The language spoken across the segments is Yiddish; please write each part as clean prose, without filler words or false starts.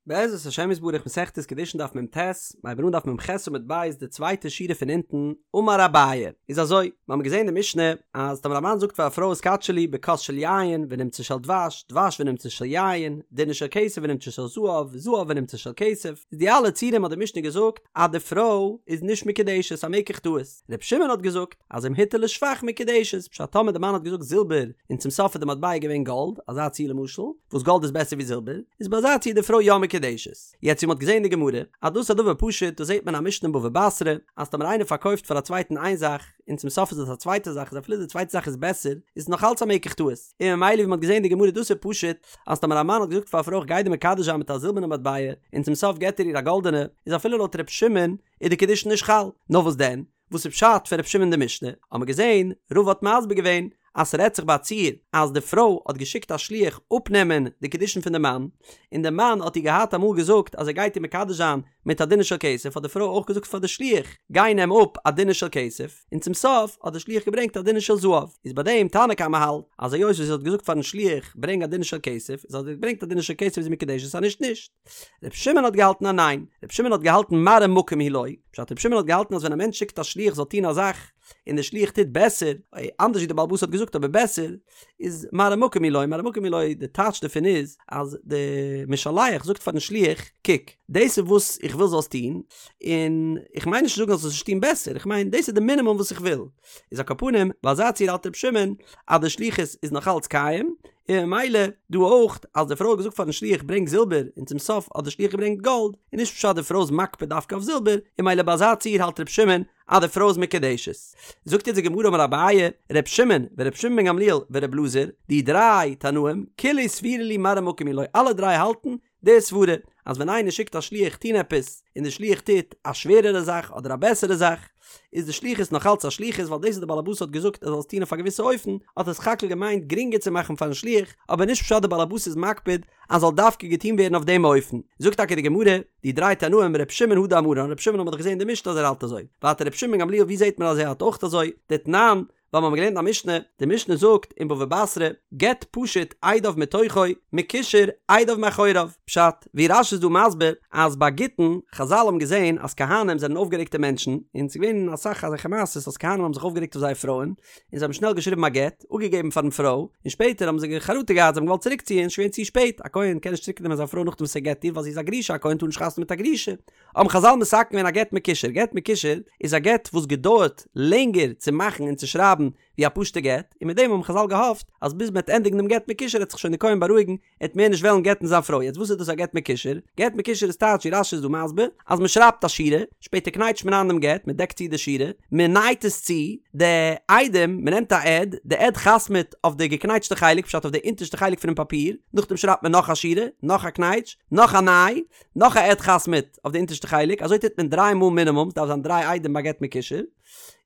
בעזרת השם יתברך מסכת קידושין דף מ"ט, מ'הייבן אן דף מ"ח עמוד ב' די צווייטע שורה פון אונטן, אמר אביי, איז אזוי, מיר האבן געזען אין די משנה אז טאמער א מאן זאגט פאר א פרוי התקדשי לי בכוס של יין ונמצא של דבש, דבש ונמצא של יין, דינר של כסף ונמצא של זהב, זהב ונמצא של כסף, איז די אלע ציורים האט די משנה געזאגט אז די פרוי איז נישט מקודשת א מקח טעות, ר' שמעון האט געזאגט אז אם הטעה לשבח מקודשת, פשט טאמער די מאן האט געזאגט זילבער און צום סוף איז די מטבע געווען גאלד, אזא ציור למשל, וואס גאלד איז בעסער ווי זילבער, איז ביי אזא ציור די פרוי יא מקודשת. יעצט ווי מ'האט געזען אין די גמרא, אז דאס איז א דבר פשוט, דאס זעט מען א משנה אין בבא בתרא, אז טאמער איינער פארקויפט פאר א צווייטן איין זאך, און צום סוף איז עס א צווייטע זאך, איז אפילו די צווייטע זאך איז בעסער, איז עס נאך אלץ א מקח טעות. און ממילא ווי מ'האט געזען אין די גמרא דאס איז פשוט, אז טאמער א מאן האט געזאגט פאר א פרוי איך גיי דיר מקדש זיין מיט א זילבערנע מטבע, און צום סוף געט ער איר א גאלדענע, איז אפילו לויט ר' שמעון, איז די קידושין נישט חל. נאר וואס דען? וואס איז פשט פון ר' שמעון די משנה? האט מען געזען, רבא האט מסביר געווען אז ס'רעדט זיך ביי א ציור אז די פרוי האט געשיקט א שליח אפנעמען די קידושין פון די מאן, און די מאן האט איר געהאט אמאל געזאגט אז ער גייט איר מקדש זיין מיט א דינר של כסף, האט די פרוי אויך געזאגט פאר די שליח גיי נעם אפ א דינר של כסף, און צום סוף האט די שליח געברענגט א דינר של זהב, איז ביי דעם תנא קמא האלט אז היות וואס זי האט געזאגט פארן שליח ברענג א דינר של כסף, איז אז ער האט געברענגט א דינר של כסף איז זי מקודשת אז נישט נישט. ר' שמעון האט געהאלטן אז ניין, ר' שמעון האט געהאלטן מראה מקום הוא לו, פשט ר' שמעון האט געהאלטן אז ווען א מענטש שיקט א שליח זאל טון א זאך, און דער שליח טוט בעסער, אנדערש ווי דער בעל הבית האט געזאגט אבער בעסער, איז מראה מקום הוא לו, מראה מקום הוא לו, די טייטש דערפון איז, אז די משלח זאגט פארן שליח, קוק, דאס איז וואס איך וויל זאלסט טון, און איך מיין נישט צו זאגן אז זאלסט נישט טון בעסער, איך מיין דאס איז די מינימום וואס איך וויל. איז על כל פנים, ביי אזא ציור האלט ר' שמעון אז די שליחות איז נאך אלץ קיים, און ממילא דא אויך אז די פרוי האט געזאגט פארן שליח ברענג זילבער און צום סוף האט די שליח געברענגט גאלד, איז נישט פשט די פרוי איז מקפיד דווקא אויף זילבער, און ממילא ביי אזא ציור האלט ר' שמעון אז די פרוי איז מקודשת. זאגט יעצט די גמרא אמר אביי, ר' שמעון ור' שמעון בן גמליאל ור' אלעזר, די דריי תנאים, כולהו סבירא להו מראה מקום הוא לו, אלע דריי האלטן די סברה אז ווען איינער שיקט א שליח טון עפעס און די שליח טוט א שווערערע זאך אדער א בעסערע זאך איז די שליחות נאך אלץ א שליחות ווייל דאס וואס די בעל הבית האט געזאגט ער זאל עס טון אויף א געוויסע אופן האט ער סך הכל געמיינט גרינגער צו מאכן פארן שליח אבער נישט פשט די בעל הבית איז מקפיד אז זאל דווקא געטון ווערן אויף דעם אופן. זאגט טאקע די גמרא, די דריי תנאים ר' שמעון הא דאמרן ר' שמעון האט מען דאך געזען אין די משנה אז ער האלט אזוי ווייטער ר' שמעון בן גמליאל ווי זעט מען אז ער האלט אויך אזוי דתנן ווייל מיר האבן געלערנט א משנה, די משנה זאגט אין בבא בתרא, גט פשוט עדיו מתוכו, מקושר עדיו מאחוריו, פשט, ווי רש"י איז דא מסביר, אז ביי גיטין, חזל האבן געזען אז כהנים זענען אויפגערעגטע מענטשן, און ס'איז געווען אסאך אזעלכע מעשות אז כהנים האבן זיך אויפגערעגט אויף זייער פרויען, און זיי האבן שנעל געשריבן א גט, אפגעגעבן פארן פרוי, און שפעטער האבן זיי חרטה געהאט, זיי האבן געוואלט צוריקציען, ס'איז געווען צו שפעט, א כהן קען נישט צוריקנעמען זיין פרוי נאכדעם וואס ער גט איר ווייל זי איז א גרושה, א כהן טאר נישט חתונה מיט א גרושה. האבן חזל מתקן געווען א גט מקושר, גט מקושר איז א גט וואס געדויערט לענגער צו מאכן און צו שרייבן ווי א פשוטע גט, און מיט דעם האבן חזל געהאפט אז ביז מ'וועט ענדיגן דעם גט מקושר וועט זיך שוין די כהן בארואיגן, ער וועט מער נישט וועלן גט'ן זיין פרוי, יעצט וואס איז דאס א גט מקושר? גט מקושר איז טייטש ווי רש"י איז דא מסביר, אז מ'שרייבט א שורה, שפעטער קנייטשט מען איין דעם גט, מ'דעקט צו די שורה, מ'נייט עס צו, די עדים, מ'נעמט א עד, די עד חתמ'עט אויף די געקנייטשטע חלק, פשט אויף די אונטערשטע חלק פונעם פאפיר, נאכדעם שרייבט מען נאך א שורה, נאך א קנייטש, נאך א ניי, נאך א עד חתמ'עט אויף די אונטערשטע חלק, אזוי טוט מען דריי מאל מינימום, ס'דארף זיין דריי עדים ביי גט מקושר,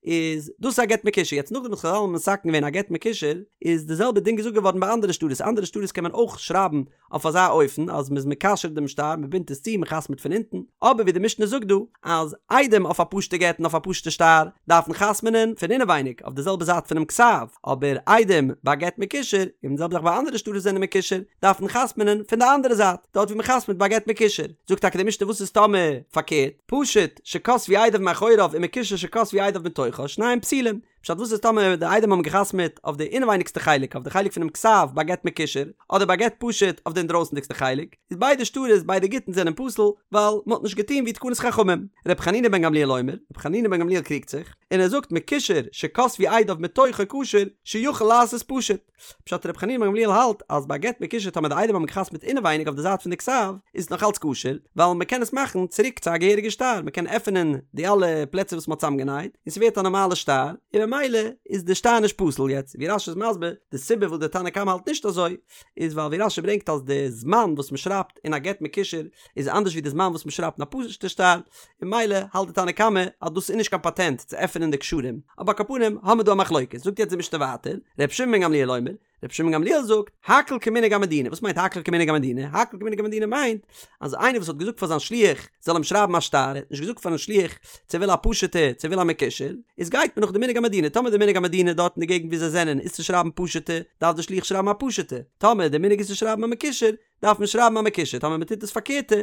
איז דאס איז א גט מקושר, יעצט נאכדעם וואס חזל האבן מתקן געווען א גט מקושר, איז די זעלבע דין געזאגט געווארן ביי אנדערע שטרות, אנדערע שטרות קען מען אויך שרייבן אויף אזא אופן אז מ'איז מקשר דעם שטר, מ'בינדט עס צו, מ'חתמ'עט פון אונטן, אבער ווי די משנה זאגט דא, אז עדים אויף א פשוטע גט און אויף א פשוטע שטר דארפן חתמ'נען פון אינעווייניג אויף די זעלבע זייט פונעם כתב, אבער עדים ביי גט מקושר, און די זעלבע זאך ביי אנדערע שטרות זענען מקושר, דארפן חתמ'נען פון די אנדערע זייט, דארט ווי מ'חתמ'ט ביי גט מקושר. זאגט טאקע די משנה וואס איז טאמער פארקערט, פשוט שכתבו עדיו מאחוריו ומקושר שכתבו עדיו מתוכו, שניהם פסולים. פשט וואס איז טאמער די עדים האבן געחתמ'עט אויף די אינעווייניגסטע חלק, אויף די חלק פונעם כתב ביי גט מקושר, אדער ביי גט פשוט אויף די אינדרויסנדיגסטע חלק, איז ביידע שטרות ביידע גיטין זענען פסול, ווייל מ'האט נישט געטון ווי תקנת חכמים. ר' חנינא בן גמליאל אומר, ר' חנינא בן גמליאל קריגט זיך, און ער זאגט מקושר שכתבו עדיו מתוכו כשר שיכול לעשות פשוט. פשט ר' חנינא בן גמליאל האלט אז ביי גט מקושר טאמער די עדים האבן געחתמ'ט אינעווייניג אויף די זייט פון די כתב איז עס נאך אלץ כשר ווייל מען קען עס מאכן צוריק צו א געהעריגע שטר מען קען עפענען די אלע פלעצער וואס מען האט צוזאמגענייט און ס'ווערט א נארמאלע שטר און ממילא איז די שטר נישט פסול יעצט ווי רש"י איז מסביר די סיבה וואס די תנא קמא האלט נישט אזוי איז ווייל ווי רש"י ברענגט אז די זמן וואס מען שרייבט אין א גט מקושר איז אנדערש ווי די זמן וואס מען שרייבט אין א פשוט'ע שטר, און ממילא האלט די תנא קמא אז דאס איז נישט קיין פאטענט צו עפענען די קשרים, אבער על כל פנים האמיר דא א מחלוקת, זאגט יעצט די משנה ווייטער, ר' שמעון בן גמליאל אומר, ר' שמעון בן גמליאל זאגט, הכל כמנהג המדינה, וואס מיינט הכל כמנהג המדינה? הכל כמנהג המדינה מיינט אז איינער וואס האט געזאגט פאר זיין שליח זאל אים שרייבן א שטר, ער האט נישט געזאגט פארן שליח צו ער וויל א פשוט'ע צו ער וויל א מקושר, איז גייט מען נאך די מנהג המדינה, טאמער די מנהג המדינה דארט אין די געגנט ווי זיי זענען איז צו שרייבן פשוט'ע, דארף די שליח שרייבן א פשוט'ע, טאמער די מנהג איז צו שרייבן א מקושר, דארף מען שרייבן א מקושר, טאמער מען טוט דאס פארקערטע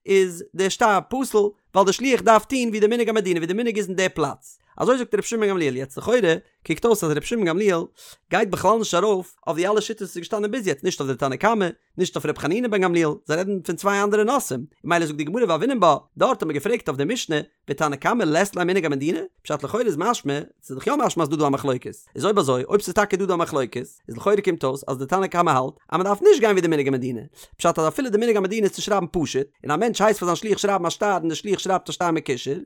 איז דער שטר פסול, ווייל דער שליח דארף טון ווי די מנהג המדינה ווי די מנהג איז אין די פלאץ. אזוי זאגט ר' שמעון גמליאל, יעצט לכאורה קוקט אויס אז ר' שמעון גמליאל גייט בכלל נישט ארויף אויף די אלע שיטות וואס איז געשטאנען ביז יעצט, נישט אויף די תנא קמא, נישט אויף ר' חנינא בן גמליאל, זיי רעדן פון צוויי אנדערע נושאים, ממילא זאגט די גמרא והוינן בה, דארט האט מען געפרעגט אויף די משנה, ותנא קמא לית ליה מנהג המדינה? פשט לכאורה איז משמע, ס'איז דאך יא משמע אז דא דא א מחלוקת, איז אויב אזוי, אויב ס'איז טאקע דא דא א מחלוקת, איז לכאורה קומט אויס אז די תנא קמא האלט אז מ'דארף נישט גיין ווי די מנהג המדינה, פשט אז אפילו די מנהג המדינה איז צו שרייבן פשוט, און א מענטש הייסט פאר זיין שליח שרייבן א שטר און די שליח שרייבט א שטר מקושר,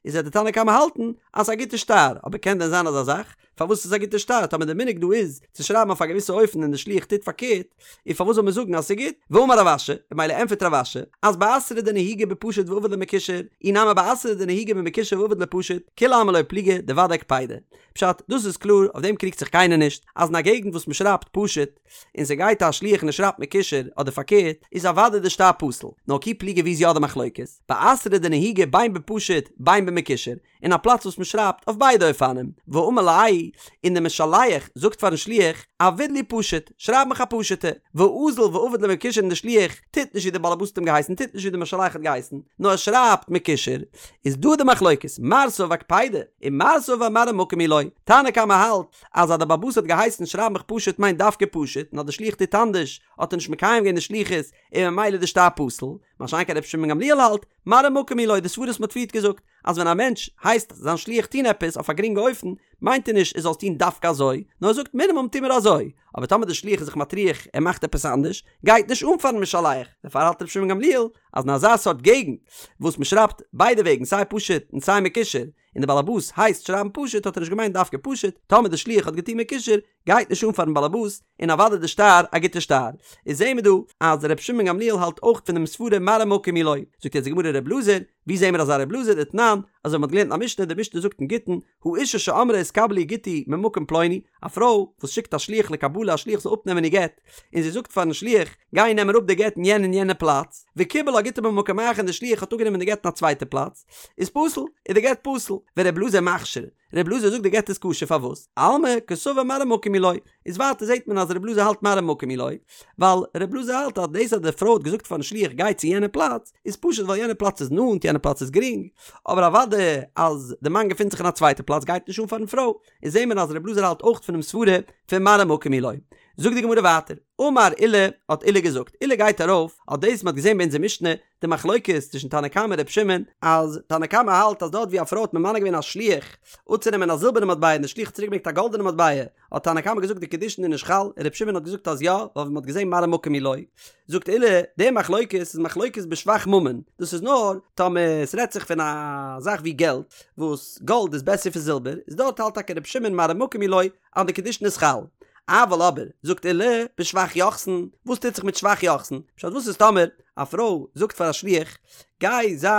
איז וועט די תנא קמא האלטן אז ס'איז א גוטע שטר, אבער קען דען זיין אזא זאך? פארוואס איז א גוטע שטר? טאמער די מנהג דא איז צו שרייבן אויף א געוויסע אופן און די שליח טוט פארקערט, איז פארוואס זאל מען זאגן אז ס'איז גוט? ואמר רב אשי, ממילא ענטפערט רב אשי, אז באתרא דנהיגי בפשוט ועביד ליה מקושר, אי נמי באתרא דנהיגי במקושר ועביד ליה פשוט, כולי עלמא לא פליגי דודאי קפידא. פשט, דאס איז קלאר, אויף דעם קריגט זיך קיינער נישט, אז אין א געגנט וואס מ'שרייבט פשוט, און ס'גייט א שליח און ער שרייבט מקושר, אדער פארקערט, איז אוודאי די שטר פסול. נאר כי פליגי ווי איז יא די מחלוקת? באתרא דנהיגי בין בפשוט בין במקושר, אין א פלאץ וואס מען שרייבט אויף ביידע אופנים, ואמר ליה, און דער משלח זאגט פארן שליח, עביד לי פשוט, שרייב מיך א פשוטע, ואזיל ועביד ליה מקושר און דער שליח טוט נישט ווי דער בעל הבית האט אים געהייסן, טוט נישט ווי דער משלח האט געהייסן, נאר ער שרייבט מקושר, איז דא די מחלוקת, מר סבר קפידא, און מר סבר מראה מקום היא לו, תנא קמא האלט אז אז דער בעל הבית האט געהייסן שרייב מיך פשוט מיינט דווקא פשוט, און אז דער שליח טוט אנדערש האט ער נישט מקיים געווען די שליחות און ממילא איז די שטר פסול, מה שאין כן רבי שמעון גמליאל האלט, מראה מקום היא לו, די סברא וואס מען האט פריערט געזאגט, אז ווען א מענטש הייסט זיין שליח טון עפעס אויף א גרינגע אופן, מיינט ער נישט ער זאל עס טון דווקא אזוי, נאר ער זאגט מינימום טו מיר אזוי, אבער טאמער דער שליח איז זיך מטריח ער מאכט עפעס אנדערש, גייט נישט אן פארן משלח, דערפאר האלט רבי שמעון גמליאל אז אין אזא סארט געגנט וואס מען שרייבט ביידע וועגן סיי פשוט און סיי מקושר, און דער באלעבאס הייסט שרייבן פשוט האט ער נישט געמיינט דווקא פשוט, טאמער דער שליח האט געטון מקושר, גייט נישט אן פארן באלעבאס, און אוודאי די שטר א גוטע שטר. איז זעהן מיר דא אז ר' שמעון גמליאל האלט אויך פון דעם סברה מראה מקום היא לו. זאגט יעצט די גמרא ר' אלעזר, ווי זעהן מיר אזא ר' אלעזר דתנן, אזוי ווי מ'האט געלערנט אין א משנה, די משנה זאגט אין גיטין, האשה שאמרה התקבל לי גיטי ממקום פלוני, א פרוי וואס שיקט א שליח לקבלה א שליח זאל אפנעמען איר גט, און זי זאגט פארן שליח, גיי נעם אראפ די גט אין יענע און יענע פלאץ, וקיבל לה גיטה במקום אחר און די שליח האט אפגענומען די גט אין א צווייטע פלאץ, איז פסול, איז די גט פסול, ור' אלעזר מכשיר, ר' אלעזר זאגט די גט איז כשר פארוואס? אלמא קסבר מראה מקום היא לו, איז ווייטער זעט מען אז ר' אלעזר האלט מראה מקום היא לו, ווייל ר' אלעזר האלט אז דאס אז די פרוי האט געזאגט פארן שליח גיי צו יענע פלאץ, איז פשוט ווייל יענע פלאץ איז נאנט יענע פלאץ איז גרינג, אבער אוודאי אז די מאן געפינט זיך אין א צווייטע פלאץ גייט נישט אן פארן פרוי, איז זעט מען אז ר' אלעזר האלט אויך פונעם סברה פון מראה מקום היא לו. זאגט די גמרא ווייטער, אמר עולא, האט עולא געזאגט, עולא גייט ארויף אויף דאס מ'האט געזען ביי אונזער משנה, די מחלוקת צווישן תנא קמא און ר' שמעון, אז תנא קמא האלט אז דארט ווי א פרוי האט ממנה געווען א שליח אפצונעמען א זילבערנע מטבע און די שליח האט צוריק געברענגט א גאלדענע מטבע, האט תנא קמא געזאגט די קידושין איז נישט חל, און ר' שמעון האט געזאגט אז יא, ווייל ווי מ'האט געזען מראה מקום היא לו. זאגט עולא, די מחלוקת איז מחלוקת בשבח ממון, דאס איז נאר טאמער עס רעדט זיך פון א זאך ווי געלט, וואס גאלד איז בעסער פון זילבער, איז דארט האלט טאקע ר' שמעון מראה מקום היא לו אז די קידושין איז חל. אבל אבער, זאגט עולא, בשבח יוחסין, וואס טוט זיך מיט שבח יוחסין? פשט וואס איז טאמער א פרוי זאגט פאר א שליח, גיי זיי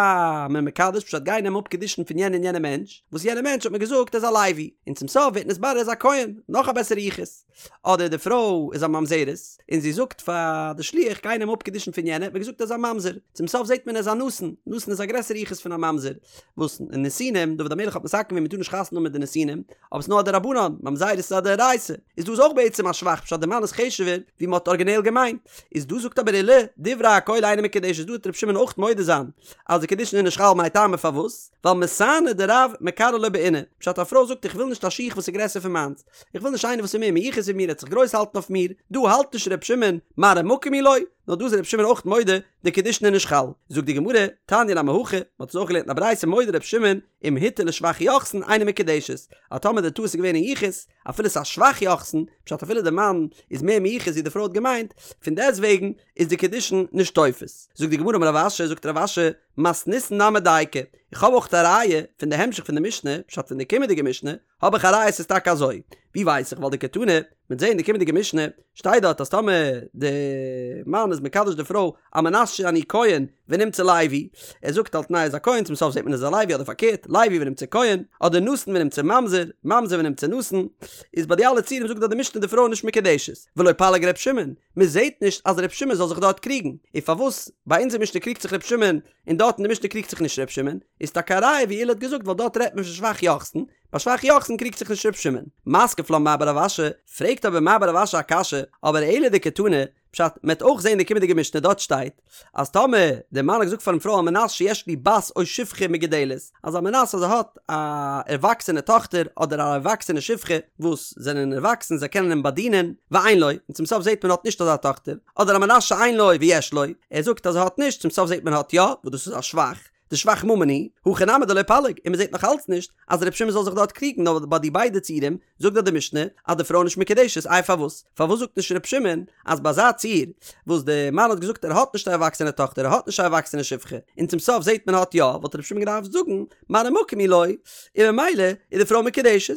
מיר מקדש, פשט גיי נעם אפ קידושין פון יענע און יענע מענטש, וואס יענע מענטש האט מיר געזאגט ער איז א לוי, און צום סוף ווערט נתברר ער איז א כהן, נאך א בעסערע יחוס. אדער די פרוי איז א ממזרת, און זי זאגט פאר די שליח גיי נעם אפ קידושין פון יענע, האט מיר געזאגט ער איז א ממזר, צום סוף זעט מען ער איז א נתין, נתין איז א גרעסערע יחוס פון א ממזר, וואס נתינים, דוד המלך האט מתקן געווען מען טאר נישט חתונה האבן מיט די נתינים, אבער ס'נאר א דרבנן, ממזרות איז א דאורייתא, איז דא איז אויך בעצם א שבח פשט די מאן איז חשוב'ער ווי מ'האט ארגינעל געמיינט, איז דא זאגט אבער עולא, דברי הכל אינה מקודשת דא וועט ר' שמעון אויך מודה זיין אז די קידושין איז נישט חל מאי טעמא פארוואס? ווייל מסאנא דרב מקרעא לא בעינא, פשט א פרוי זאגט איך וויל נישט א שיך וואס איז גרעסער פון מיינס, איך וויל נישט איינער וואס איז מער מיוחס ווי מיר ער וועט זיך גרויס האלטן אויף מיר, דא האלט נישט ר' שמעון מראה מקום היא לו, נאר דא איז ר' שמעון אויך מודה די קידושין איז נישט חל. זאגט די גמרא, תניא נמי הכי, מען האט עס אויך געלערנט אין א ברייתא מודה ר' שמעון, אם הטעה לשבח יוחסין אינה מקודשת, אז טאמער די טעות איז געווען אין יחוס, אפילו ס'איז א שבח יוחסין, פשט אפילו די מאן איז מער מיוחס ווי די פרוי האט געמיינט, פון דעסט וועגן איז די קידושין נישט תופס. זאגט די גמרא אמר רב אשי, זאגט רב אשי, מתניתין נמי דייקא, איך האב אויך א ראיה פון די המשך פון די משנה, פשט פון די קומענדיגע משנה, האב איך א ראיה ס'איז טאקע אזוי. ווי ווייס איך? ווייל דקתני, מ'וועט זעהן אין די קומענדיגע משנה, שטייט דארט אז טאמער די מאן איז מקדש די פרוי על מנת שאני כהן ונמצא לוי, ער זאגט על תנאי איז א כהן צום סוף זעט מען איז א לוי אדער פארקערט, לוי ונמצא כהן, אדער נתין ונמצא ממזר, ממזר ונמצא נתין, איז ביי די אלע ציורים זאגט דארט די משנה די פרוי איז נישט מקודשת, ולא פליג ר' שמעון, מען זעט נישט אז ר' שמעון זאל זיך דארט קריגן, און פארוואס ביי אונזער משנה קריגט זיך ר' שמעון און דארט אין די משנה קריגט זיך נישט ר' שמעון, איז טאקע א ראיה ווי עולא האט געזאגט ווייל דארט רעדט מען פון שבח יוחסין, ביי שבח יוחסין קריגט זיך נישט ר' שמעון. מתקיף לה מר בר רב אשי, פרעגט אבער מר בר רב אשי א קשיא, אבער אלא דקתני, פשט, מ'עט אויך זען אין די קומענדיגע משנה דארט שטייט אז טאמער די מאן האט געזאגט פארן פרוי על מנת שיש לי בת או שפחה מגודלת, אז על מנת אז ער האט א ערוואקסענע טאכטער אדער א ערוואקסענע שפחה וואס זענען ערוואקסן זיי קענען אים באדינען, ואין לו, און צום סוף זעט מען האט נישט אזא טאכטער, אדער על מנת שאין לו ויש לו, ער זאגט אז ער האט נישט, צום סוף זעט מען האט יא, וואס דאס איז א שבח, דשבח ממון הוא, הכא נמי דלא פליג, און מען זעט נאך אלץ נישט אז ר' שמעון זאל זיך דארט קריגן נאר ביי די ביידע ציורים זאגט דאך די משנה אז די פרוי איז נישט מקודשת איי פארוואס? פארוואס זאגט נישט ר' שמעון אז ביי אזא ציור וואס די מאן האט געזאגט ער האט נישט א ערוואקסענע טאכטער ער האט נישט א ערוואקסענע שפחה און צום סוף זעט מען האט יא וואלט ר' שמעון געדארפט זאגן מראה מקום הוא לו און ממילא איז די פרוי מקודשת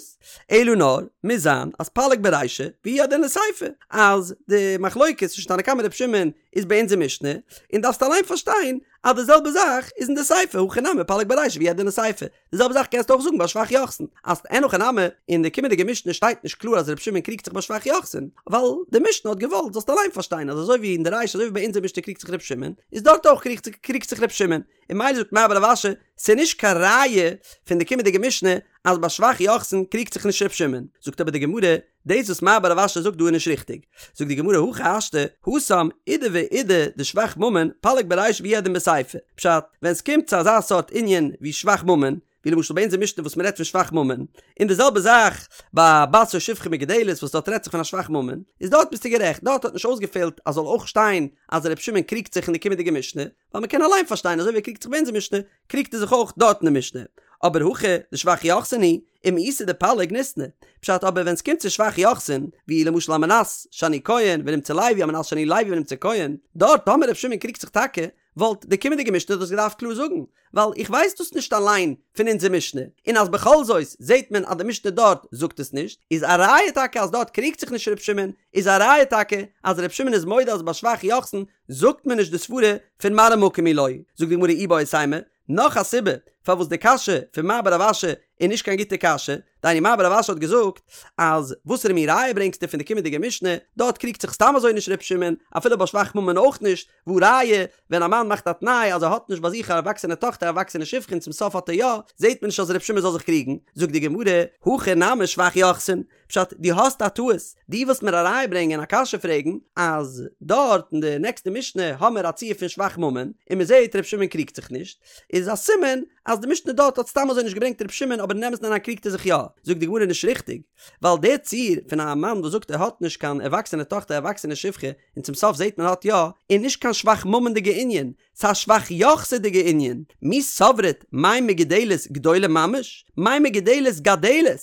אלא נאר מוז זיין אז פליג ברישא והוא הדין לסיפא אז די מחלוקת צווישן תנא קמא ר' שמעון איז ביי אונזער משנה און דארפסט אליין פארשטיין אז די זעלבע זאך איז אין די סיפא הכא נמי פליג ברישא והוא הדין לסיפא די זעלבע זאך קענסטו אויך זאגן ביי שבח יוחסין, אז אין הכי נמי, אין די קומענדיגע משנה שטייט נישט קלאר אז רבי שמעון קריגט זיך ביי שבח יוחסין, ווייל די משנה האט געוואלט זאלסט אליין פארשטיין אז אזוי ווי אין די רישא אזוי ווי ביי אונזער משנה קריגט זיך רבי שמעון, איז דארט אויך קריגט זיך רבי שמעון, און ממילא זאגט מר בר רב אשי, ס'איז נישט קיין ראיה פון די קומענדיגע משנה אז ביי שבח יוחסין קריגט זיך נישט רבי שמעון, זאגט אבער די גמרא, דאס וואס מר בר רב אשי זאגט דא איז נישט ריכטיג. זאגט די גמרא הכי השתא, התם אידי ואידי דשבח ממון פליג ברישא והוא הדין בסיפא. פשט, ווען סקומט צו אזא סארט ענין ווי שבח ממון, ווי למשל ביי אונזער משנה וואס מ'רעדט פון שבח ממון, און די זעלבע זאך ביי בת או שפחה מגודלת וואס דארט רעדט זיך פון א שבח ממון, איז דארט ביסטו גערעכט, דארט האט נישט אויסגעפעלט אז זאל אויך שטיין אז ר' שמעון קריגט זיך אין די קומענדיגע משנה, ווייל מ'קען אליין פארשטיין אזוי ווי ער קריגט זיך ביי אונזער משנה, קריגט ער זיך אויך דארט אין די משנה. אבער הכא דשבח יוחסין הוא, ומאיסא דפליג ניתני. פשט אבער ווען סקומט צו שבח יוחסין, ווי למשל על מנת שאני כהן ונמצא לוי על מנת שאני לוי ונמצא כהן, דארט טאמער ר' שמעון קריגט זיך טאקע, וואלט די קומענדיגע משנה דאס געדארפט קלאר זאגן, ווייל איך ווייס דאס נישט אליין פון אונזער משנה, און אז בכל זאת זעט מען אז די משנה דארט זאגט עס נישט, איז א ראיה טאקע אז דארט קריגט זיך נישט ר' שמעון, איז א ראיה טאקע אז ר' שמעון איז מודה אז ביי שבח יוחסין זאגט מען נישט די סברה פון מראה מקום הוא לו, זאגט די גמרא איבעית אימא, נאך א סיבה פארוואס די קשיא פון מר בר רב אשי איז נישט קיין גוטע קשיא, דהיינו מר בר רב אשי האט געזאגט אז וואסערע מין ראיה ברענגסטו פון די קומענדיגע משנה, דארט קריגט זיך סתם אזוי נישט ר' שמעון, אפילו ביי שבח ממון אויך נישט, והא ראיה, ווען א מאן מאכט א תנאי אז ער האט נישט ביי זיך א ערוואקסענע טאכטער א ערוואקסענע שפחה און צום סוף האט ער יא, זעט מען נישט אז ר' שמעון זאל זיך קריגן, זאגט די גמרא, הכא נמי שבח יוחסין, פשט, דו האסט א טעות, דו ווילסט מיר א ראיה ברענגען א קשיא פרעגן, אז דארט אין די נעקסטע משנה האמיר א ציור פון שבח ממון, און מען זעט ר' שמעון קריגט זיך נישט, איז א סימן אז די משנה דארט האט סתם אזוי נישט געברענגט ר' שמעון אבער אין אמת'ן אריין קריגט ער זיך יא, זאגט די גמרא נישט ריכטיג, ווייל דער ציור פון א מאן וואס זאגט ער האט נישט קיין ערוואקסענע טאכטער ערוואקסענע שפחה און צום סוף זעט מען האט יא, איז נישט קיין שבח ממון'דיגע ענין, ס'איז א שבח יוחסינ'דיגע ענין, מי סברת מאי מגודלת גדולה ממש? מאי מגודלת גדלת?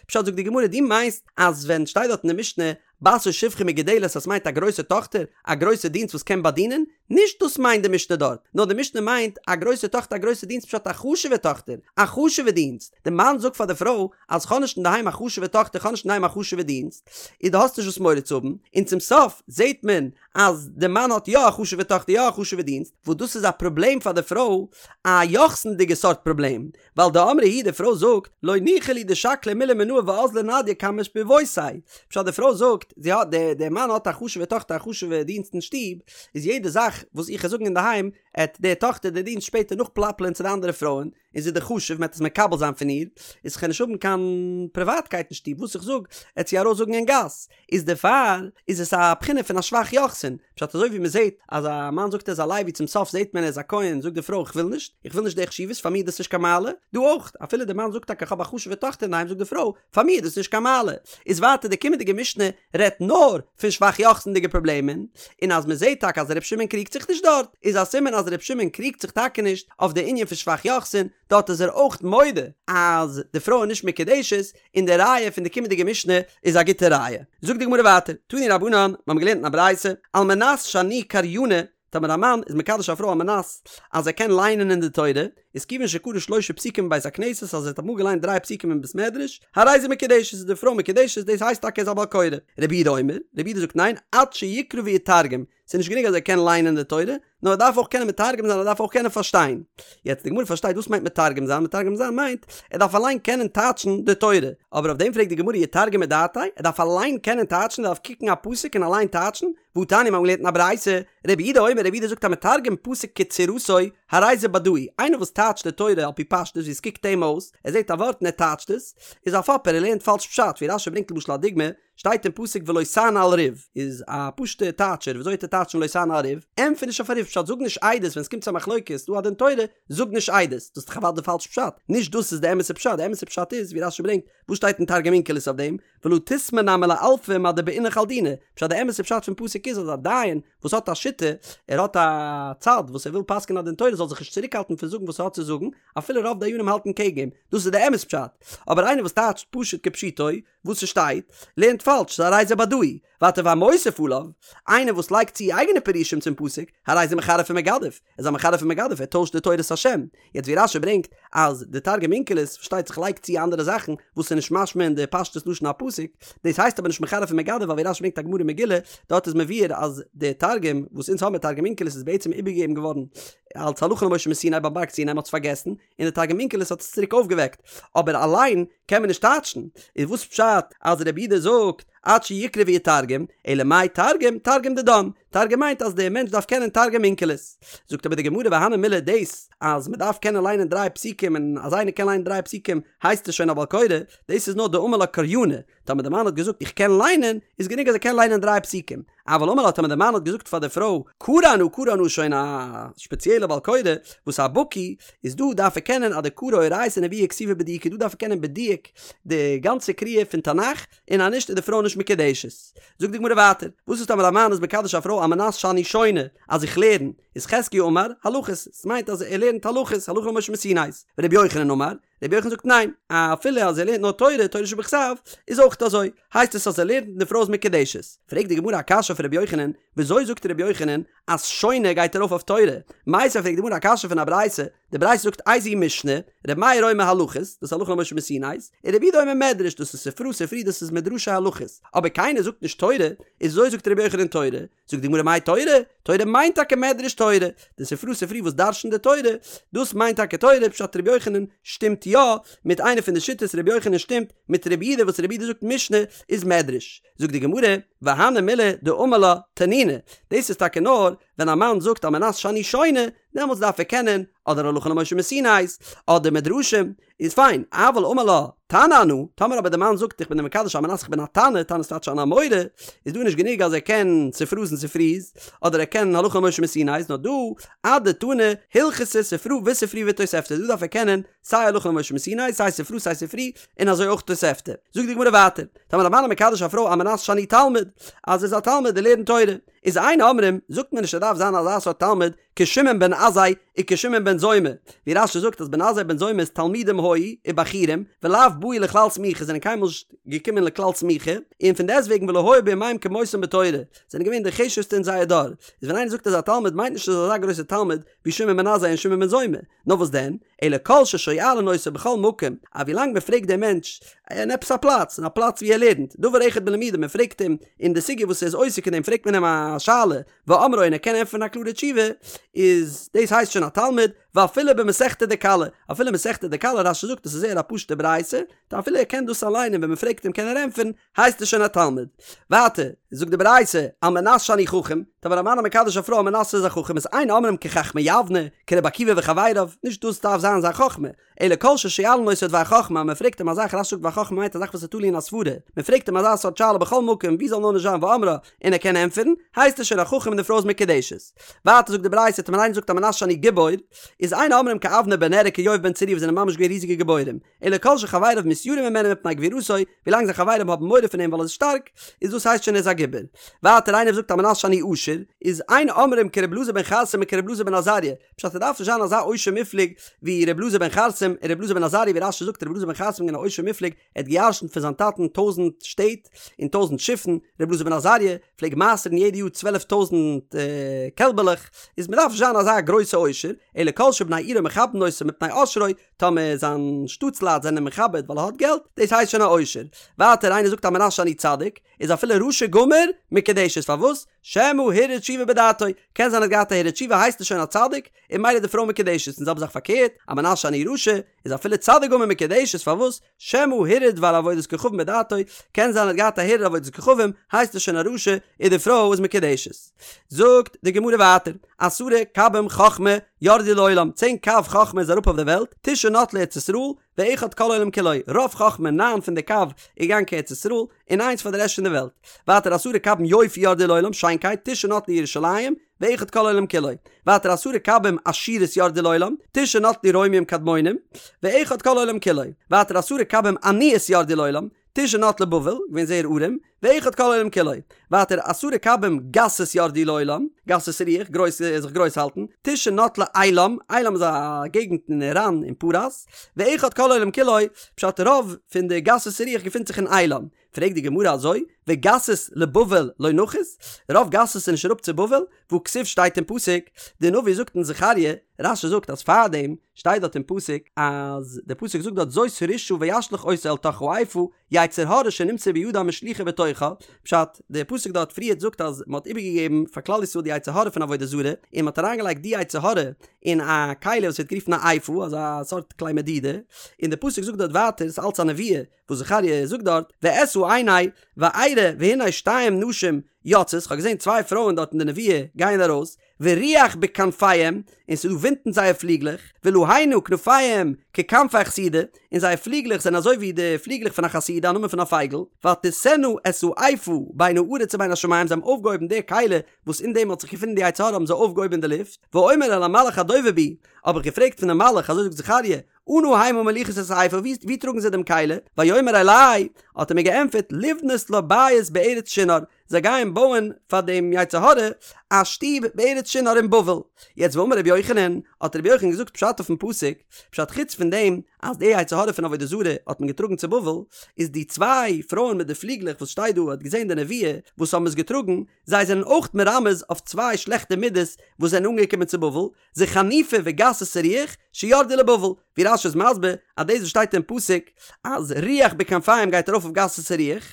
פשט זאגט די גמרא דו מיינסט אז ווען שטייט דארט אין די משנה בת או שפחה מגודלת אז ס'מיינט א גרויסע טאכטער, א גרויסע דינסט וואס קען באדינען? נישט דאס מיינט די משנה דארט, נאר די משנה מיינט א גרויסע טאכטער א גרויסע דינסט פשט א חשוב'ע טאכטער, א חשוב'ע דינסט, די מאן זאגט פאר די פרוי אז כ'האב נישט אינדערהיים א חשוב'ע טאכטער כ'האב נישט אינדערהיים א חשוב'ע דינסט, איז דו האסט נישט וואס מורא צו האבן, און צום סוף זעט מען אז די מאן האט יא א חשוב'ע טאכטער יא א חשוב'ע דינסט, וואס דאס איז א פראבלעם פאר די פרוי, א יוחסינ'דיגע סארט פראבלעם, ווייל דאמרה היא די פרוי זאגט, לא ניחא לי דשקלה מילי מינאי ואזלא נדיא קמי שפובותי, פשט די פרוי זאגט, זי האט, די די מאן האט א חשוב'ע טאכטער א חשוב'ע דינסט אין שטוב, איז יעדע זאך וואס איך וועל זאגן אינדערהיים, עט די טאכטער די דינסט שפעטער נאכפלאפלען צו די אנדערע פרויען, און זי איז דאך חשוב, מ'עט עס מקבל זיין פון איר, איז כ'קען נישט האבן קיין פריוואטקייט אין שטוב, וואס איך זאג, עט זי ארויס זאגן אין גאס, איז דערפאר איז עס א בחינה פון א שבח יוחסין, פשט אזוי ווי מ'זעט אז א מאן זאגט ער איז א לוי צום סוף זעט מען ער איז א כהן, זאגט די פרוי איך וויל נישט, איך וויל נישט די חשיבות, פאר מיר איז דאס נישט קיין מעלה, דא אויך, אפילו די מאן זאגט טאקע איך האב א חשוב'ע טאכטער אינדערהיים זאגט די פרוי, פאר מיר איז דאס נישט קיין מעלה. איז ווייטער די קומענדיגע משנה רעדט נאר פון שבח יוחסינ'דיגע פראבלעמען, און אז מען זעט טאקע אז ר' שמעון קריגט זיך נישט דארט, איז א סימן אז ר' שמעון קריגט זיך טאקע נישט אויף די ענין פון שבח יוחסין, דארט איז ער אויך מודה אז די פרוי איז נישט מקודשת, און די ראיה פון די קומענדיגע משנה איז א גוטע ראיה. זאגט די גמרא ווייטער, תנו רבנן, מיר האבן געלערנט אין א ברייתא, על מנת שאני קריינא, טאמער א מאן איז מקדש א פרוי על מנת אז ער קען ליינען אין די תורה, איז כיוון שקרא שלשה פסוקים בבית הכנסת אז ער האט אמאל געליינט דריי פסוקים אין בית מדרש, הרי זו מקודשת איז די פרוי מקודשת דאס הייסט טאקע ער איז א בעל קורא. רבי יהודה אומר, רבי יהודה זאגט ניין, עד שיקרא ויתרגם, ס'איז נישט גענוג אז ער קען ליינען די תורה, נאר ער דארף אויך קענען מתרגם זיין ער דארף אויך קענען פארשטיין. יעצט די גמרא פארשטייט וואס מיינט מתרגם זיין, מתרגם זיין מיינט ער דארף אליין קענען טייטשן די תורה, אבער אויף דעם פרעגט די גמרא יתרגם מדעתיה, ער דארף אליין קענען טייטשן, ער דארף קוקן א פסוק און אליין טייטשן, והתניא מיר האבן געלערנט אין א ברייתא, רבי יהודה אומר רבי יהודה זאגט המתרגם פסוק כצורתו, הרי זה בדאי, איינער וואס טייטשט די תורה על פי פשטות ווי עס קוקט אים אויס, ער זעט א ווארט און ער טייטשט עס, איז א פאפער, ער לערנט פאלש פשט, ווי רש"י ברענגט למשל א דוגמא, שטייט אין פסוק ולא תענה על ריב, איז א פשוטע טייטשער, וויאזוי וועט ער טייטשן ולא תענה על ריב? ענטפער נישט אויף א ריב, פשט זאג נישט עדות ווען עס קומט צו א מחלוקת, דא א דין תורה, זאג נישט עדות, דאס איז דאך אוודאי פאלש פשט, נישט דאס איז די אמת'ע פשט, די אמת'ע פשט איז ווי רש"י ברענגט, וואס שטייט אין תרגום אונקלוס אויף דעם, ולא תסמי נמי לאלפא מה דבעינך על דינא, פשט די אמת'ע פשט פון פסוק איז אז א דיין וואס האט א שיטה, ער האט א צד וואס ער וויל פסק'ענען א דין תורה זאל זיך נישט צוריקהאלטן פון זאגן וואס ער האט צו זאגן, אפילו רוב דיינים האלטן קעגן אים, דאס איז די אמת פשט, אבער איינער וואס טייטשט פשוט כפשוטו וואס ס'שטייט, לערנט פאלש, ס'איז הרי זה בדאי, ווייטער והמוסיף עליו, איינער וואס לייגט צו אייגענע פירושים צום פסוק, הרי זה מחרף ומגדף, ער איז א מחרף ומגדף, ער טוישט די תורת השם. יעצט ווי רש"י ברענגט אז די תרגום אונקלוס פארשטייט זיך לייגט צו אנדערע זאכן וואס איז נישט משמע אין די פשטות לשון הפסוק, דאס הייסט אבער נישט מחרף ומגדף ווייל ווי רש"י ברענגט א גמרא אין מגילה, דארט איז מבואר אז די תרגום וואס אונז האבן תרגום אונקלוס איז בעצם איבערגעגעבן געווארן אלס הלכה למשה מסיני ביים בארג סיני מען האט עס פארגעסן, און די תרגום אונקלוס האט עס צוריק אויפגעוועקט, אבער אליין קען מען נישט טייטשן, איז וואס פשט אז רבי יהודה זאגט עד שיקרא ויתרגם, אלא מאי תרגום, תרגום דידן, תרגום מיינט אז דער מענטש דארף קענען תרגום אונקלוס. זאגט אבער די גמרא והני מילי דאס אז מען דארף קענען ליינען דריי פסוקים און אז איינער קען ליינען דריי פסוקים הייסט עס שוין א בעל קורא, דאס איז נאר דאמר לה קריינא, טאמער די מאן האט געזאגט איך קען ליינען, איז גענוג אז ער קען ליינען דריי פסוקים. אבל אמר לה טאמער די מאן האט געזאגט פאר די פרוי קרי אנא קרי אנא שוין א שפעציעלע בעל קורא וואס א בקי איז דא דארף ער קענען עד דקרי אורייתא ונביאי וכתובי בדיוקא דא דארף ער קענען בדיוק די גאנצע קריאה פון תנך און אז נישט איז די פרוי נישט מקודשת. זאגט די גמרא ווייטער וואס איז טאמער א מאן איז מקדש א פרוי על מנת שאני שונה אז איך לערן איז חזקיה אמר הלכות ס'מיינט אז ער לערנט הלכות הלכה למשה מסיני ורבי יוחנן אמר רבי יוחנן זאגט ניין, אפילו אז ער לערנט נאר תורה, תורה שבכתב, איז אויך אזוי, הייסט עס אז ער לערנט און די פרוי איז מקודשת. פרעגט די גמרא א קשיא אויף רבי יוחנן, וויאזוי זאגט רבי יוחנן אז שונה גייט ארויף אויף תורה? מיתיבי פרעגט די גמרא א קשיא פון א ברייתא, די ברייתא זאגט איזוהי משנה, רבי מאיר אומר הלכות, דאס איז הלכה למשה מסיני, און רבי יהודה אומר מדרש, דאס איז ספרא ספרי דאס איז מדרשי הלכות, אבער קיינער זאגט נישט תורה, איז וויאזוי זאגט רבי יוחנן תורה? זאגט די גמרא מאי תורה? תורה מיינט טאקע מדרש תורה, די ספרא ספרי וואס דרש'נט די תורה, דאס מיינט טאקע תורה, פשט רבי יוחנן שטימט יא מיט איינע פון די שיטות, רבי יוחנן שטימט מיט רבי יהודה וואס רבי יהודה זאגט משנה איז מדרש, זאגט די גמרא, והני מילי דאמר לה תנינא, דאס איז טאקע נאר ווען א מאן זאגט על מנת שאני שונה, דעמאלטס דארף ער קענען אדער הלכה למשה מסיני'ס אדער מדרשים, איז פיין, אבל אמר לה, תנא אנא, טאמער אבער די מאן זאגט איך בין דיר מקדש על מנת איך בין א תנא, תנא איז טייטש אן אמורא, איז דא נישט גענוג אז ער קען ספרא'ס און ספרי'ס, אדער ער קען הלכה למשה מסיני'ס, נאר דא, אדתני הלכתא ספרא וספרי ותוספתא, דא דארף ער קענען סיי הלכה למשה מסיני, סיי ספרא סיי ספרי, און אזוי אויך תוספתא. זאגט די גמרא ווייטער, טאמער א מאן איז מקדש א פרוי על מנת שאני תלמיד, אז ער איז א תלמיד און לערנט תורה, איז אין אומרים, זאגט מען נישט ער דארף זיין אזא סארט תלמיד, כשמעון בן עזאי וכשמעון בן זומא, ווי רש"י זאגט אז בן עזאי בן זומא איז תלמידים היו ובחורים, ולאו באו לכלל סמיכה זענען קיינמאל נישט געקומען לכלל סמיכה, און פון דעסטוועגן ולא היו בימיהם כמותם בתורה, זענען געווען די חשובסטע אין זייער דור, איז ווען איינער זאגט ער איז א תלמיד מיינט נישט ער איז אזא גרויסער תלמיד ווי שמעון בן עזאי און שמעון בן זומא, נאר וואס דען, אלא כל ששואלין אותו בכל מקום, אז ווילאנג מען פרעגט דעם מענטש אין עפעס א פלאץ, אין א פלאץ ווי ער לערנט, דבר אחד בלימודו, מען פרעגט אים אין די סוגיא וואס ער איז עוסק אין דעם פרעגט מען אים א שאלה, ואומרה און ער קען ענטפערן א קלארע תשובה, איז דאס הייסט שוין א תלמיד, ואפילו במסכתא דכלה, אפילו מסכתא דכלה, רש"י זאגט עס איז זייער א פשוטע ברייתא, טא אפילו ער קען דאס אליין און ווען מען פרעגט אים קען ער ענטפערן, הייסט עס שוין א תלמיד. ווייטער, זאגט די ברייתא, על מנת שאני חכם, טאמער א מאן איז מקדש א פרוי על מנת ער איז א חכם איז אין אומרים כחכמי יבנה, כרבי עקיבא וחבריו, נישט דאס דארף זיין זיין חכמה, אלא כל ששואלין אותו דבר חכמה, מען פרעגט אים א זאך, רש"י זאגט דבר חכמה מיינט א זאך וואס איז תלוי אין א סברה, מען פרעגט אים אזא סארט שאלה בכל מקום ווי זאל נאר נישט זיין ואומרה, און ער קען ענטפערן, הייסט עס שוין א חכם און די פרוי איז מקודשת. ווייטער זאגט די ברייתא, טאמער איינער זאגט על מנת שאני גיבור, איז אין אומרים כאבנר בן נר וכיואב בן צרויה וואס זענען ממש געווען ריזיגע גיבורים, אלא כל שחבריו מתיראים ממנו מפני גבורתו, ווילאנג זיין חברים האבן מורא פון אים ווייל ער איז שטארק, איז דאס הייסט שוין ער איז א גיבור. ווייטער איינער זאגט על מנת שאני עשיר, איז אין אומרים כר' אלעזר בן חרסום וכר' אלעזר בן עזריה, פשט ער דארף נישט זיין אזא עושר מופלג ווי ר' אלעזר בן חרסום און ר' אלעזר בן עזריה ווי רש"י זאגט ר' אלעזר בן חרסום איז געווען א עושר מופלג ער האט געירשנט פון זיין טאטן טויזנט שטעט און טויזנט שיפן, ר' אלעזר בן עזריה פלעג מעשר'ן יעדע יאר צוועלף טויזנט קעלבעלעך, איז מען דארף נישט זיין אזא גרויסע עושר, אלא כל שבני עירו מכבדין אותו מפני עושרו, טאמער זיין שטאטסלייט זענען מכבד ווייל ער האט געלט, דאס הייסט שוין א עושר. ווייטער איינער זאגט על מנת שאני צדיק, איז אפילו רשע גמור מקודשת, פארוואס? שמא הרהר תשובה בדעתו, קען זיין ער האט געהאט א הרהור תשובה הייסט ער שוין א צדיק, און ממילא די פרוי מקודשת, און זעלבע זאך פארקערט, א מנשה אני רשע, איז אפילו צדיק גמור מקודשת, פארוואס? שמא הרהר דבר עבודת כוכבים בדעתו, קען זיין ער האט געהאט א הרהור עבודת כוכבים, הייסט ער שוין א רשע, און די פרוי איז מקודשת. זאגט די גמרא ווייטער, עשרה קבים חכמה ירדו לעולם, צען קב חכמה איז אראפ אויף די וועלט, תשעה נטלה ארץ ישראל, ואחד כל העולם כולו, רוב חכמה, ניין פון די קב, איז געגאנגען קיין ארץ ישראל, און איינס פאר די רעשט פון די וועלט. ווייטער עשרה קבים יופי ירדו לעולם, שיינקייט, תשעה נטלה ירושלים, ואחד כל העולם כולו. ווייטער עשרה קבים עשירות ירדו לעולם, תשעה נטלו רומים קדמונים, ואחד כל העולם כולו. ווייטער עשרה קבים עניות ירדו לעולם, תשעה נטלה בבל, געווען זייער ארעם, ואחד כל העולם כולו. ווייטער עשרה קבים גסות ירדו לעולם, גסות רוח, גרויס, זיך גרויס האלטן, תשעה נטלה עילם, עילם איז א געגנט אין איראן אין פרס, ואחד כל העולם כולו, פשט רוב פון די גסות רוח געפינט זיך אין עילם. פרעגט די גמרא אזוי, וגסות לבבל לא נחית? רוב גסות איז נישט אראפ צו בבל? והכתיב שטייט אין פסוק, די נביא זאגט אין זכריה, רש"י זאגט אז פארדעם שטייט דארט אין פסוק אז די פסוק זאגט דארט זאת הרשעה וישלך אותה אל תוך האיפה, יצר הרע שנמסר בידם השליכו בתוכה, פשט, די פסוק דארט פריערט זאגט אז מען האט איבערגעגעבן פאר כלל ישראל די יצר הרע פון עבודה זרה, און מען האט אריינגעלייגט די יצר הרע אין א כלי וואס ווערט גערופן א איפה, אזא סארט כלי מדידה, און די פסוק זאגט דארט ווייטער, ס'איז אלץ א נבואה, וואס זכריה זאגט דארט, ואשא עיני וארא והנה שתיים נשים יוצאות, כ'האב געזען צוויי פרויען דארט אין די נבואה גייען ארויס, ורוח בכנפיהם, און ס'איז דא ווינט אין זייער פליגלעך, ולהנה כנפיהם ככנפי החסידה, און זייער פליגלעך זענען אזוי ווי די פליגלעך פון א חסידה, א נאמען פון א פייגל, ותשאנה את האיפה בין הארץ ובין השמים, זיי האבן אויפגעהויבן די כלי וואס אין דעם האט זיך געפונען די יצר הרע האבן זיי אויפגעהויבן אין די לופט, ואומר אל המלאך הדובר בי, האב איך געפרעגט פון דעם מלאך, אזוי זאגט זכריה, אנה המה מוליכות את האיפה, וואו טראגן זיי דעם כלי? ויאמר אלי, האט ער מיר געענטפערט, לבנות לה בית בארץ שנער, זיי גייען בויען פאר דעם יצר הרע א שטוב בארץ שנער אין בבל. יעצט ואמר רבי יוחנן, האט רבי יוחנן געזאגט פשט אויפן פסוק, פשט חוץ פון דעם אז די יצר הרע פון עבודה זרה האט מען געטראגן צו בבל, איז די צוויי פרויען מיט די פליגלעך וואס שטייט דא האט געזען די נבואה וואס האבן עס געטראגן, זיי זענען אויך מרמז אויף צוויי שלעכטע מידות וואס זענען אנגעקומען צו בבל, זה חניפה וגסות הרוח שירדו לבבל, ווי רש"י איז מסביר אז דאס וואס שטייט אין פסוק אז רוח בכנפיהם גייט ארויף אויף גסות הרוח,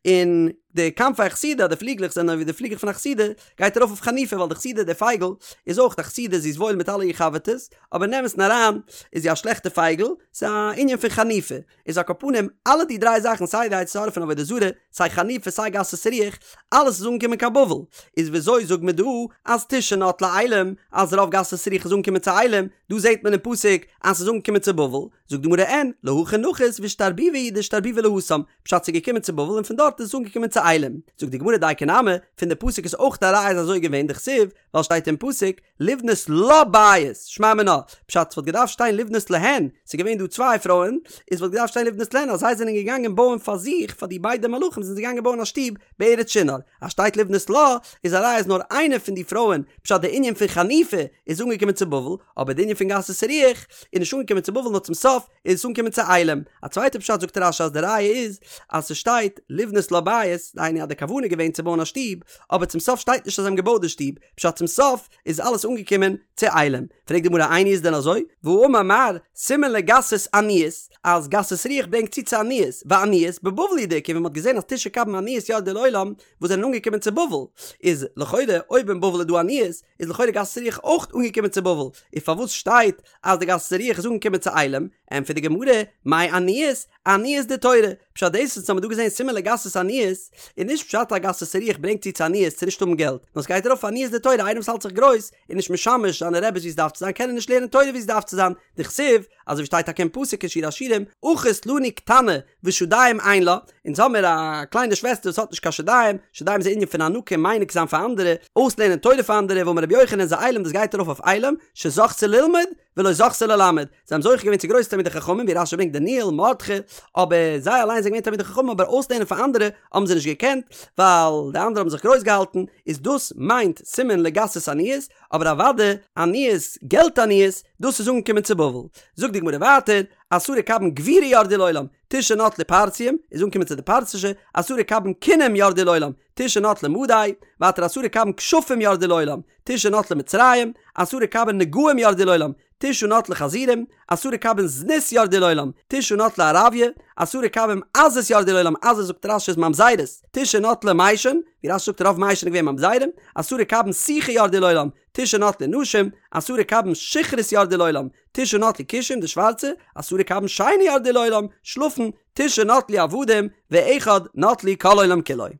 און די כנפי החסידה די פליגלעך זענען ווי די פליגלעך פון א חסידה גייט ארויף אויף חניפה ווייל די חסידה די פייגל איז אויך א חסידה זי איז וואויל מיט אלע איר חבר'טעס אבער אין אמת'ן אריין איז זי א שלעכטע פייגל, ס'איז א ענין פון חניפה. איז על כל פנים, אלע די דריי זאכן סיי די יצר הרע פון עבודה זרה, סיי חניפה סיי גסות רוח, אלעס איז אנגעקומען קיין בבל, איז וויאזוי זאגט מען דא אז תשעה נטלה עילם, אז רוב גסות רוח איז אנגעקומען צו עילם, דא זעט מען אין פסוק אז ס'איז אנגעקומען צו בבל, זאגט די גמרא אין, להכא נחית ואשתרבובי הוא דאשתרבובי להתם, פשט ס'איז געקומען צו בבל און פון דארט איז עס אנגעקומען צו עילם, זאגט די גמרא דייקא נמי, פון די פסוק איז אויך א ראיה אז אזוי געווען, דכתיב, ווייל שטייט אין פסוק, לבנות לה בית, שמע מינה, פשט ס'וואלט געדארפט שטיין לבנות להן, ס'איז געווען דא צוויי פרויען, איז וואלט געדארפט שטיין לבנות להן אז זיי זענען געגאנגען בויען פאר זיך, פאר די ביידע מלאכים זענען זיי געגאנגען בויען א שטוב בארץ שנער, אז שטייט לבנות לה, איז א ראיה אז נאר איינע פון די פרויען, פשט די ענין פון חניפה איז אנגעקומען צו בבל, אבער די ענין פון גסות הרוח איז נישט אנגעקומען צו בבל נאר צום סוף איז עס אנגעקומען צו עילם. א צווייטע פשט זאגט רש"י אז די ראיה איז אז ס'שטייט לבנות לה בית, דהיינו אז די כוונה איז געווען צו בויען א שטוב, אבער צום סוף שטייט נישט אז זיי האבן געבויט די שטוב, פשט צום סוף איז אלעס אנגעקומען צו עילם. פרעגט די גמרא איני איז דען אזוי? והאמר מר, סימן לגסות עניות, אז גסות רוח ברענגט צו צו עניות, ועניות בבבל הוא דאיכא ווי מ'האט געזען אז תשעה קבין עניות ירדו לעולם וואס זענען אנגעקומען צו בבל, איז לכאורה אויב אין בבל איז דא עניות איז לכאורה גסות רוח אויך אנגעקומען צו בבל, איז פארוואס שטייט אז די גסות רוח איז אנגעקומען צו עילם? ענטפערט די גמרא, מאי עניות? עניות דתורה, פשט דאס וואס האמיר דא געזען סימן לגסות עניות, איז נישט פשט אז גסות רוח ברענגט צו צו עניות צו נישט האבן געלט, נאר סגייט ארויף עניות דתורה איינער וואס האלט זיך גרויס איז נישט משמש זיינע רעבעס ווי עס דארף צו זיין קען ער נישט לערנען תורה ווי עס דארף צו זיין, דכתיב, אזוי ווי שטייט טאקע אין פסוק אין שיר השירים, אחות לנו קטנה ושדיים אין לה, אונז האמיר א קליינע שוועסטער וואס האט נישט קיין שדיים, שדיים איז א ענין פון הנקה מניק זיין פאר אנדערע, אויסלערנען תורה פאר אנדערע, ואמר רבי יוחנן זה עילם דאס גייט ארויף אויף עילם, שזכתה ללמוד, ולא זכתה ללמד, זיי האבן זוכה געווען צו גרויסע תלמידי חכמים ווי רש"י ברענגט דניאל, מרדכי, אבער זיי אליין זענען געווען תלמידי חכמים אבער אויסלערנען פאר אנדערע האבן זיי נישט געקענט, ווייל די אנדערע האבן זיך גרויס געהאלטן, איז דאס מיינט סימן לגסות עניות, אבער אוודאי עניות, געלט עניות, דאס איז אנגעקומען צו בבל. זאגט די גמרא ווייטער, עשרה קבין גבורה ירדו לעולם, תשעה נטלו פרסיים, איז אנגעקומען צו די פרסישע, עשרה קבין כינים ירדו לעולם, תשעה נטלו מדי, ווייטער עשרה קבין כשפים ירדו לעולם, תשעה נטלו מצרים, עשרה קבין נגעים ירדו לעולם, תשעה נטלו חזירים, עשרה קבין זנות ירדו לעולם, תשעה נטלו ערביא, עשרה קבין עזות ירדו לעולם, עזות זאגט רש"י איז ממזרות, תשעה נטלו מישן, ווי רש"י זאגט רוב מישן איז געווען ממזרים, עשרה קבין סיכה ירדו לעולם, תשעה נטלו נשים, עשרה קבין שכרות ירדו לעולם, תשעה נטלו כושים די שווארצע, עשרה קבין שינה ירדו לעולם, שלאפן, תשעה נטלו עבדים, ואחד נטלו כל העולם כולו.